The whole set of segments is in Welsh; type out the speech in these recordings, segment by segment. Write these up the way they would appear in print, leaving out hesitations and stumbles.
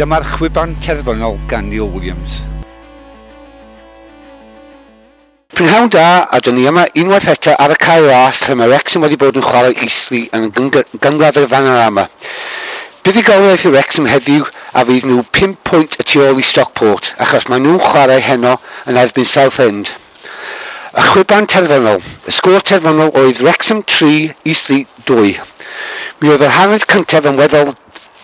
Dyma'r chwiban terfynol gan Neil Williams. Prynhawn da, a dyn ni yma unwaith eto ar y Cae Ras lle mae Wrexham wedi bod yn chwarae Eastleigh yn gynghrair y Vanarama. Buddugoliaeth i Wrexham heddiw a fydd nhw 5 pwynt y tu ôl i Stockport achos maen nhw'n chwarae heno yn erbyn Southend. Y chwiban terfynol. Y sgôr terfynol oedd Wrexham 3, Eastleigh 2. Mi oedd yr hanner cyntaf yn weddol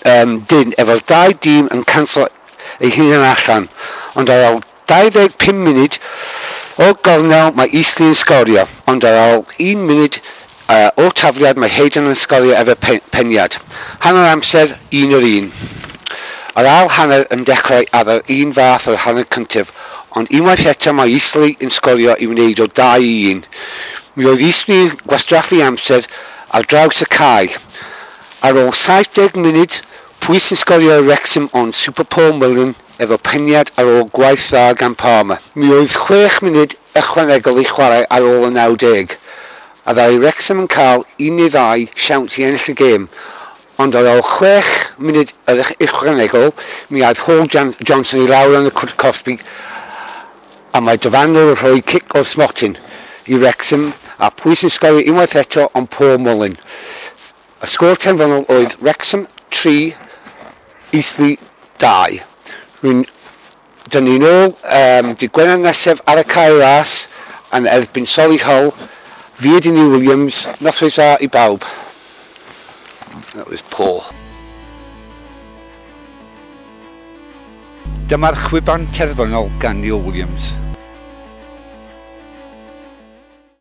dyn efo'r dau dîm yn canslo eu hunain allan, ond ar ôl 25 munud o gornel mae Eastleigh yn sgorio, ond ar ôl 1 munud o tafliad mae Hayden yn sgorio efo peniad. Hanner amser, 1-1. Yr ail hanner yn dechrau ar yr un fath o'r hanner cyntaf, ond unwaith eto mae Eastleigh yn sgorio i wneud o 2-1. Mi oedd Eastleigh yn gwastraffu amser ar draws y cae. Ar ôl 70 munud, pwy sy'n sgorio i Wrexham ond Super Paul Mullin efo peniad ar ôl gwaith dda gan Palmer. Mi oedd 6 munud ychwanegol i chwarae ar ôl y 90, a ddaru Wrexham yn cael 1 neu 2 siawns i ennill y gêm, ond ar ôl 6 munud yr ychwanegol, mi aeth Hall Johnson i lawr yn y cwrt cosbi, a mae dyfarnwr yn rhoi cic o'r smotyn i Wrexham, a pwy sy'n sgorio unwaith eto ond Paul Mullin. Y sgôr terfynol oedd Wrexham 3, Eastleigh 2. Dyn ni'n ôl dydd Gwener nesaf ar y Cae Ras yn erbyn Solihull. Fi ydy Neil Williams. Noswaith dda i bawb. That was poor. Dyma'r chwiban terfynol gan Neil Williams.